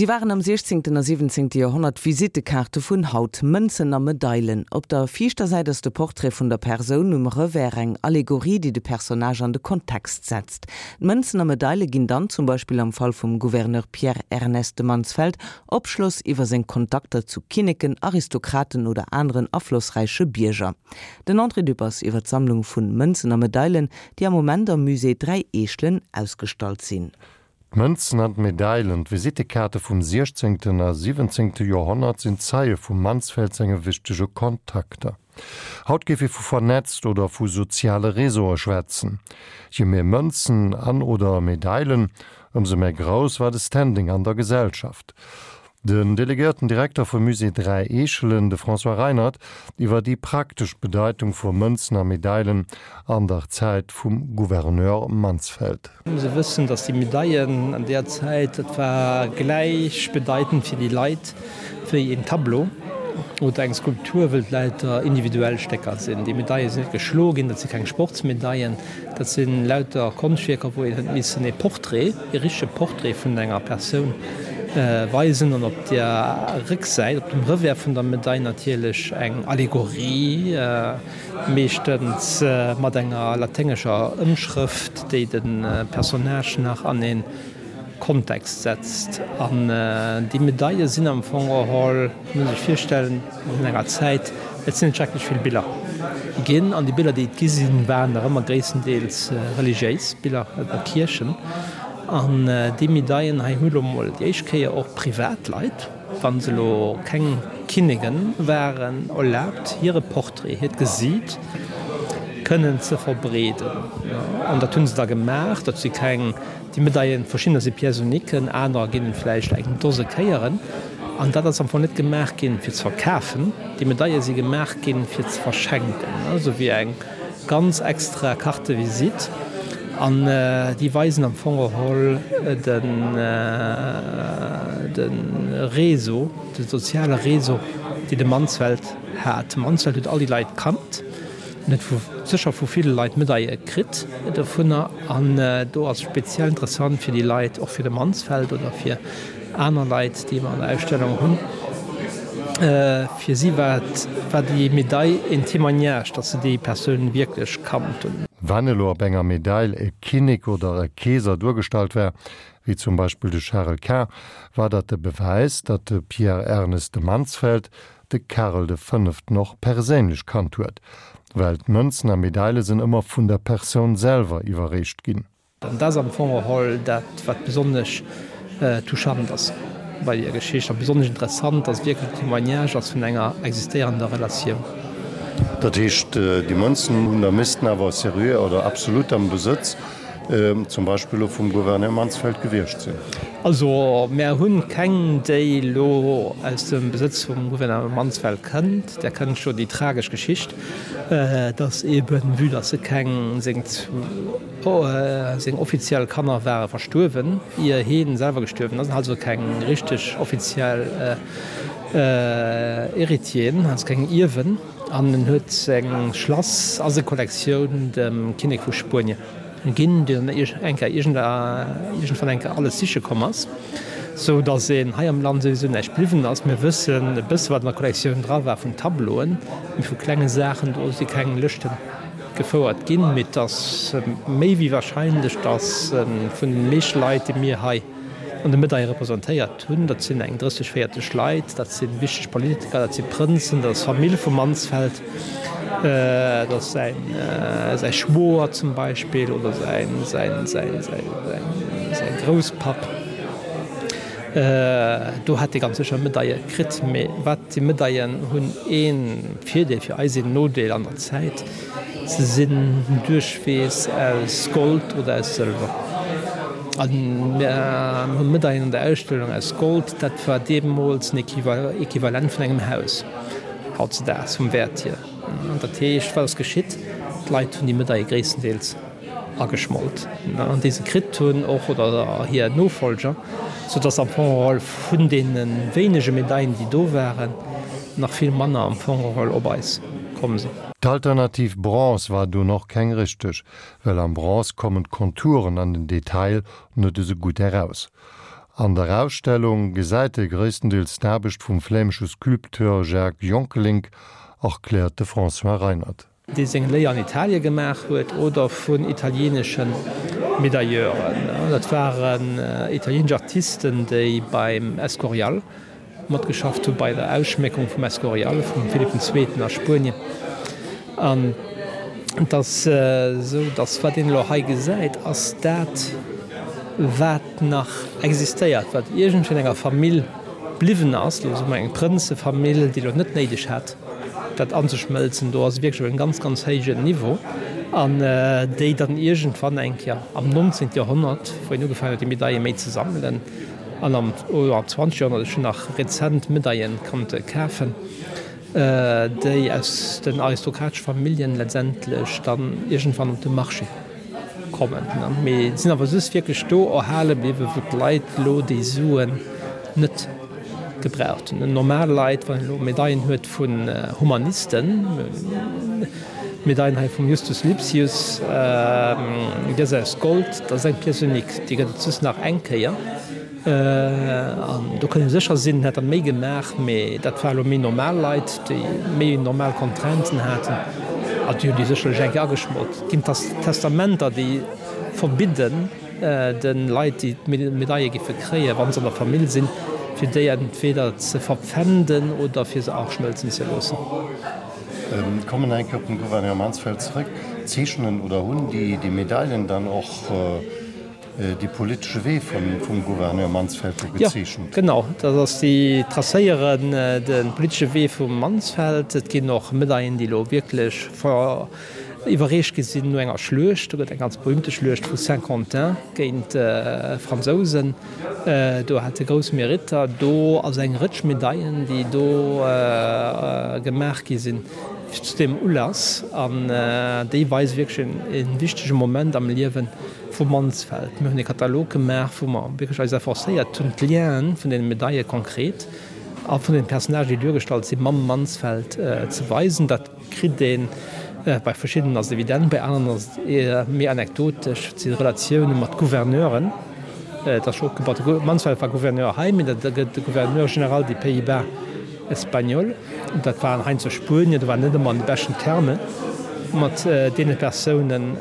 Si waren am siechzéngten a siwwenzéngte Joerhonnert d'Visittekaarte vun haut, Mënzen a Medailen. Op der viischter Säit ass de Portrait vun der Persoun, um Revers eng Allegorie, déi de Personnage an de Kontext setzt. D'Mënzen a Medaile ginn dann, zum Beispill am Fall vum Gouverneur Pierre Ernest de Mansfeld, Opschloss iwwer seng Kontakter zu Kinneken, Aristokraten oder aneren aflossräiche Bierger. Den André Dübbers iwwer d'Sammlung vun Mënzen a Medailen, déi am Moment am Musée Dräi Eechelen ausgestallt sinn. D'Mënzen an d'Medailen, d'Visittekaarte vum siechzéngten a siwwenzéngte Joerhonnert sinn Zeie vum Mansfeld senge wichtege Kontakter. Haut géif ee vu vernetzt oder vu soziale Réseaue schwätzen. Je méi Mënzen an oder Medailen, ëmsou méi grouss war de Standing an der Gesellschaft. Den delegéierten Direkter vum Musée Dräi Eechelen, de François Reinert, iwwer déi praktesch Bedeitung vu Mënzen a Medailen an der Zäit vum Gouverneur Mansfeld. Muss e wëssen, datt déi Medaillen an deer Zäit, dat war gläichbedeitend fir déi Leit wéi een Tableau oder eng Skulptur, wëll et lauter individuell Stécker sinn. Déi Medaille sinn net geschloe ginn, dat si keng Sportsmedaillen, Dat si lauter Konschtwierker, wou een huet missen ee Portrait, ee richtege Portrait vun enger Persoun weisen an op der Récksäit, op dem Revers vun der Medail natierlech eng Allegorie, meeschtens mat enger laténgescher Ëmschrëft, déi de Personnage nach an ee Kontext setzt. An déi Medaile sinn am Fong geholl, muss ee sech virstellen, An enger Zäit, et sinn net schrecklech vill Biller ginn, an déi Biller, déi et gi sinn, waren nach ëmmer gréisstendeels religiéis Biller oder Kierchen. An déi Medaillen hei hu lo mol déi éischt Kéier och Privatleit, wa se elo keng Kinnege waren, erlaabt, hire Portrait, hiert Gesiit kënnen ze verbreeden. An dat hu se da gemaach. Dat si keng. Déi Medaillen, verschiddener si Pièces uniquen, anerer ginn et vläicht eng Dose Kéieren. An dat ass am Fong net gemaach ginn, fir ze verkafen. Déi Medaille si gemaach ginn, fir ze verschenken, esou wéi eng ganz extra Carte de visite. An déi weisen am Fong geholl den, de Réseau, de soziale Réseau, dee de Mansfeld hat. De Mansfeld huet all déi Leit kannt. En huet vu sécher vu ville Leit Medaille kritt dovunner an do ass speziell interessant fir déi Leit, och fir de Mansfeld oder fir aner Leit, déi mer an der Ausstellung hunn, fir si war et, war déi Medaille een Témoignage, datt se déi Persoun wierklech kannt hunn. Wann elo op enger Medail e Kinnek oder e Keeser duergestallt war, wéi zum Beispill de Charel Quint, war dat de Bewäis, datt de Pierre Ernest de Mansfeld de Karel de Fënneften och perséinlech kannt huet, well d'Mënzen a Medaile sinn ëmmer vun der Persoun selwer iwwerreecht ginn. An dat ass am Fong geholl dat, wat besonnesch touchant ass bei där Geschicht a besonnesch interessant, dass et wierklech en Témoignage ass vun enger existéierender Relatioun. Dat heescht, déi Mënzen hunn da missten awer seriö oder absolut am Besëtz zum Beispill elo vum Gouverneur Mansfeld gewiescht sinn. Also mär hunn keng, déi elo aus dem Besëtz vum Gouverneur Mansfeld kënnt. Där kënnt jo déi tragesch Geschicht, dass eben, vue dass se keng, seng seng offiziell Kanner ware verstuerwen, ier heen selwer gestuerwen ass, also keng richteg offiziell Héritieren, also keng Ierwen. An en huet seng Schlass a seng Kollektioun dem Kinnek vu Spuenie ginn, deen dann eng Kéier iergendwann eng Kéier alles siche komm ass, sou datt een hei am Land souwisou näischt bliwwen ass. Mir wëssen e bësse wat an der Kollektioun dra war vun Tableauen, mee vu klenge Saachen, do si keng Lëschte gefouert ginn. Mee et ass méi wéi warscheinlech, datt vun den meeschte Leit, déi mir hei an de Medaille representéiert hunn. Dat sinn eng 30, 40 Leit, dat si wichteg Politiker, dat si Prënzen, dat ass d'Famill vum Mansfeld, dat ass säin säi Schwoer zum Beispill oder säin säin säin säin säin Grousspapp. Do hätt e ganz sécher Medaille kritt. Mee wat déi Medaillen hunn ee Virdeel fir eis, een Nodeel an der Zäit. Se sinn duerchwees aus Gold oder aus Sëlwer. A mir hu Medaillen an der Ausstellung aus Gold, dat war deemools en Equivalent vun engem Haus hautzedaags vum Wäert hier. An dat heescht, wat ass geschitt? D'Leit hunn déi Medaille gréisstendeels ageschmolt, an déi se kritt hunn och, oder hir Nofolger, soudass am Fong geholl vun deene wéinege Medaillen, déi do waren, nach vill manner am Fong geholl op eis komm sinn. D'Alternativ Bronze war dunn och keng richteg, well am Bronze kommen d'Konturen an den Detail net esou gutt eraus. An der Ausstellung gesäit ee gréisstendeels d'Aarbecht vum flämesche Sculpteur Jacques Jongkelynck, erkläert de François Reinert. Dee seng Léier an Italie gemaach huet, oder vun italieenesche Medailleuren. Dat waren italieenesch Artisten, déi beim Escorial matgeschafft hu bei der Ausschméckung vum Escorial vum Philipp den Zweeten a Spuenien. An et ass esou, datt wat een elo hei gesäit, ass dat, wat nach existéiert, wat iergendwéi an enger Famill bliwwen ass, elo soe mer eng Prënzefamill, déi elo net néideg hat, dat anzeschmëlzen. Do ass et wierklech op engem ganz, ganz héijen Niveau. An déi dann iergendwann eng Kéier am 19. Joerhonnert, wou een ugefaangen huet, déi Medaille méi ze sammelen, An am 20. Joerhonnert, ech hunn nach rezent Medaillen konnte kafen, déi aus den aristokratesche Familljen letztendlech dann iergendwann op de Marché kommen. Mee sinn awer just wierklech do erhale bliwwen, wou d'Leit elo déi Suen net gebraucht hunn. Normal Leit, wann een elo Medaillen huet vun Humanisten, D'Medail hei vum Justus Lipsius, déi ass aus Gold, dat ass eng Pièce unique, déi gëtt et just nach eng Kéier. An do kënnt ee sécher sinn, en hätt der méi gemaach, mee dat war elo méi normal Leit, déi méi normal Contrainten haten, a déi hunn déi sécherlech eng Kéier ageschmolt. Et ginn Testamenter, déi verbidden de Leit, déi d'Medaille géife kréien, wa se an der Famill sinn, fir déi entweder ze verpfänden oder fir se aschmëlzen ze loossen. Kommen eng Kéier op den Gouverneur Mansfeld zrëck. Zeechnen oder hunn déi déi Medailen dann och dee politesche Wee vum Gouverneur Mansfeld do gezeechent? Jo, genau. Dat ass, déi tracéieren de politesche Wee vum Mansfeld. Et ginn och Medaillen, déi elo wierklech iwwerreecht gi sinn no enger Schluecht. Do gëtt eng ganz berühmte Schluecht vu Saint-Quentin géint d'Fransousen. Do hat e grouss Meritter. Do ass eng Rëtsch Medaillen, déi do gemaach gi sinn zu deem Ulass. An déi weise wierklech e wichtege Moment am Liewe vu Mansfeld. Mir hunn e Katalog gemaach, wou mer wierklech eis efforcéiert hunn, d'Lienen vun deene Medaille konkret a vun den Personnagen, déi duergestallt sinn, mam Mansfeld ze weisen. Dat Kritt een. Bei verschiddenen ass et evident, bei aneren ass et eher méi anekdotesch. Et si Relatioune mat Gouverneuren. Et ass scho opgebaut, de Mansfeld war Gouverneur hei, mee da gëtt de Gouverneur général des Pays-Bas espagnols. Dat waren heiansdo Spuenier, do war net ëmmer an de beschten Terme mat deene Persounen.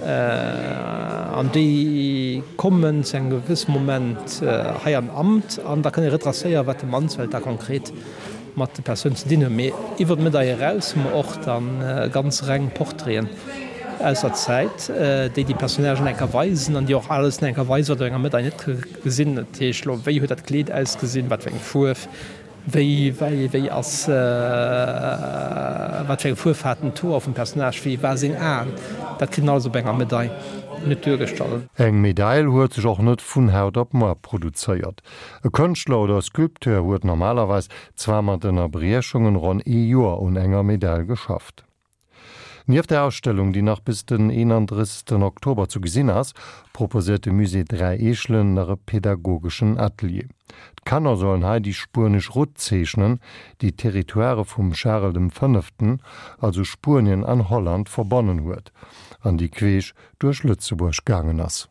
An déi kommen zu engem gewësse Moment hei an Amt an da kënne retracéieren, wat de Mansfeld da konkret mat de Persounen ze dinn hunn. Mee iwwer d'Medail eraus hu mer och da ganz reng Portraiten aus der Zäit, déi déi Personnagen enker weisen an déi och alles enker weisen, wat op enger Medail net gesinn. Dat heescht elo, wéi huet dat Kleed ausgesinn, wat fir eng Fuerf, wéi, wéi, wéi ass, wat fir eng Fuerf haten d'Hoer vum Personnage, wéi war seng Aen. Dat kritt een alles op enger Medail net duergestallt. Eng Medail huet sech och net vun haut op muar produzéiert. E Kënschtler oder Sculpteur huet normalerweis, zwar mat Ënnerbriechungen, ronn ee Joer un enger Medail geschafft. Nieft der Ausstellung, déi nach bis den 31 Oktober zu gesinn ass, proposéiert de Musée 3 Eechelen nach e pedagogeschen Atelier. D'Kanner sollen hei déi spuenesch Route zeechnen, déi d'Territoirë vum Charel dem Fënneften, also Spuenien an Holland, verbonnen huet an déi queesch duerch Lëtzebuerg gaangen ass.